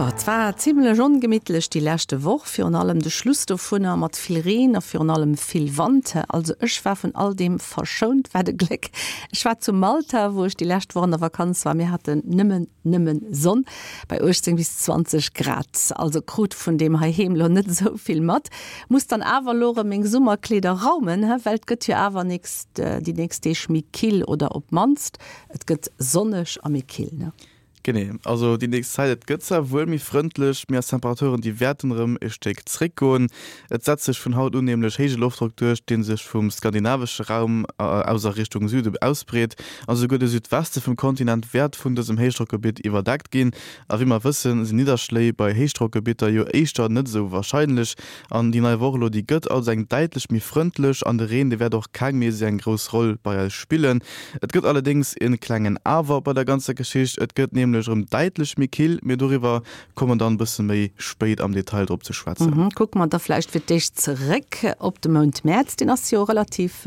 Jo, et war zimmlech ongemittlech déi leschte Woch, virun allem de Schluss dovunner mat vill Reen a virun allem vill Wand. Also ech war vun all deem verschount, wat e Gléck. Ech war zu Malta, wou ech déi lescht Woch an der Vakanz war. Mir haten nëmmen, nëmmen Sonn bei 18 bis 20 Grad. Also krut vun deem heiheem lo net esou vill mat. Muss dann awer lo rem meng Summerkleeder raumen, he, well et gëtt jo awer nächst, déi nächst Deeg méi kill oder op mannst et gëtt sonneg a méi kill, ne? Genee, also déi nächst Zäit, et gëtt zwar wuel méi frëndlech, mee eis Temperaturen, déi wäerten erëm e Stéck zréckgoen. Et setzt sech vun haut un nämlech héije Loftdrock duerch, dee sech vum skandinavesche Raum aus a Richtung Süde ausbreet. A souguer de Südweste vum Kontinent wäert vun dësem Héichdrockgebitt iwwerdeckt ginn. A wéi mer wëssen, sinn Nidderschléi bei Héichdrockgebitter jo éischter net esou warscheinlech. An déi nei Woch elo, déi gëtt also eng däitlech méi frëndlech an de Reen, dee wäert och keng méi esou eng grouss Roll bei eis spillen. Et gëtt allerdéngs e klengen Awer bei der ganzer Geschicht, et gëtt nämlech erëm däitlech méi kill, mee doriwwer komme mer dann e bësse méi spéit am Detail drop ze schwätzen. Kucke mer da vläicht fir d'éischt zeréck op de Mount Mäerz, deen ass jo relativ,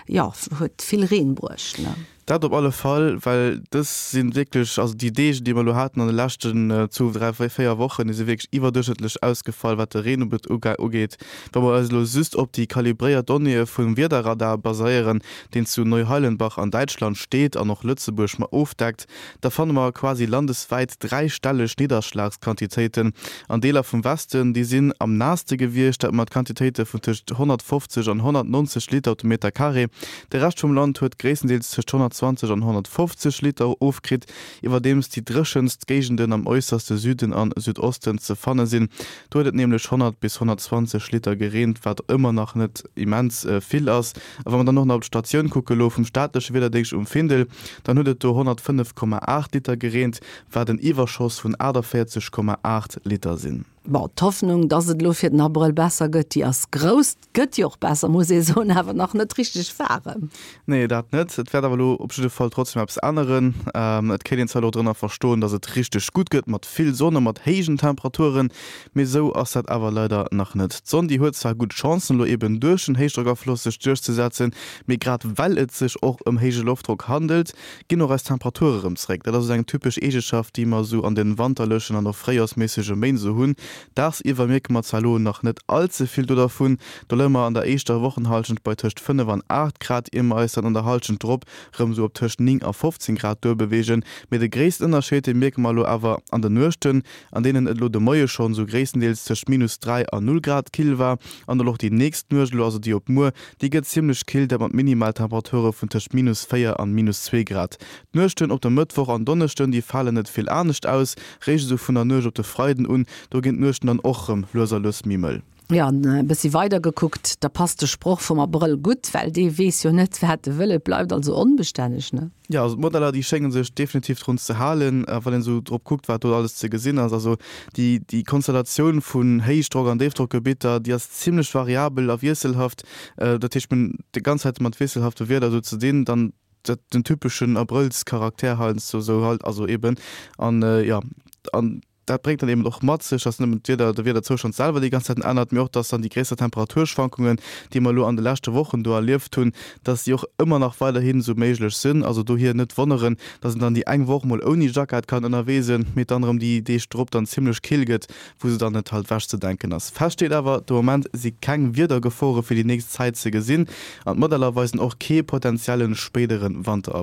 jo, huet vill Reen bruecht, ne? Dat op alle Fall, well dës si wierklech, also déi Deeg, déi mer elo haten an de leschten zwou, dräi, véier Wochen, déi si wierklech iwwerduerchschnëttlech ausgefall, wat de Reen ugeet. Wa mer eis elo just op déi kalibréiert Donnéeë vum Wiederradar baséieren, deen zu Neuheilenbach an Däitschland steet an och Lëtzebuerg mat ofdeckt, da fanne mer quasi landeswäit dräistelleg Nidderschlagsquantitéiten. An Deeler vum Westen, déi sinn am naasste gewiescht, dat mat Quantitéite vun tëscht 150 an 190 Liter op de Meter Carré. De Rescht vum Land huet gréisstendeels tëscht 120 an 150 Liter ofkritt, iwwerdeems déi dréchenst Géigenden am äusserste Süden an Südosten ze fanne sinn. Do huet et nämlech 100 bis 120 Liter gereent, wat ëmmer nach net immens vill ass. A wa mer dann och nach op d'Statioun kucke lo vum staatleche Wiederdéngscht um Findel, dann huet et do 105,8 Liter gereent, wat en Iwwerschoss vun 48,8 Liter sinn. Bon, d'Hoffnung, dass et elo fir den Abrëll besser gëtt, déi ass grouss. Et gëtt jo och besser, muss ee soen, awer nach net richteg waarem. Nee, dat net. Et wäert awer elo op jidde Fall trotzdem eppes änneren. Et kéint een zwar elo drënner verstoen, dass et richteg gutt gëtt, mat vill Sonn a mat héijen Temperaturen, mee esou ass dat awer leider nach net. D'Sonn, déi huet zwar gutt Chancen, elo eben duerch den Héichdrockafloss sech duerchzesetzen, mee grad well et sech och ëm héije Loftdrock handelt, ginn och eis Temperature rëm zréck. Dat ass esou eng typesch Eegeschaft, déi mer esou an den wanterlechen an och fréijoersméissege Méint esou hunn. Dagsiwwer mierke mer zwar elo nach net all ze vill do dervun, do leie mer an der éischter Wochenhallschent bei tëscht 5 an 8 Grad, ier mer eis dann an der Hallschent drop rëm esou op tëscht 9 a 15 Grad duerbeweegen. Mee de gréissten Ënnerscheed, dee mierke mer elo awer an den Nuechten, an deenen et elo de Moie schonn esou gréisstendeels tëscht minus 3 a 0 Grad kill war an och déi nächst Nuecht elo, also déi op muer, Déi gëtt zimmlech kill, dat mat Minimaltemperature vun tëscht minus 4 an minus 2 Grad. D'Nuechten op de Mëttwoch an Donneschden, déi falen net vill anescht aus, réischt esou vun der Nuecht op de Freiden un, do ginn d'Nuechten dann och rëm lues a lues méi mëll. Jo, an e bëssi weider gekuckt, da passt de Sproch vum Abrëll gutt, well dee weess jo net, wat e wëll. Et bleift also onbestänneg, ne? Jo, also d'Modeller, déi schénge sech definitiv drun ze halen, wann een esou drop kuckt, wat do alles ze gesinn ass. Also déi, déi Konstellatioun vun Héichdrock an Déifdrockgebitter, déi ass zimlech variabel a wiesselhaft. Dat heescht, mir hunn déi ganz Zäit mat wiesselhafte Wieder esou ze dinn. Dann dat, den typeschen Abrëllscharakter heiansdo esou halt, also eben. An jo, an Dat bréngt dann eben och mat sech, dass net nëmmen d'Wieder, de Wiederzoustand selwer déi ganz Zäiten ännert, mee och, dass dann déi gréisser Temperaturschwankungen, déi mer elo an de leschte Wochen do erlieft hunn, dass déi och ëmmer nach weiderhin esou méiglech sinn. Also dohier net wonneren, dass een dann déi eng Woch mol ouni Jackett kann ënnerwee sinn, mee dann erëm déi Deeg drop dann zimmlech kill gëtt, wou se dann net halt wechzedenken ass. Fest steet awer, de Moment si keng Wiedergefore fir déi nächst Zäit ze gesinn an d'Modeller weisen och kee potenzielle spéidere Wanterabréck.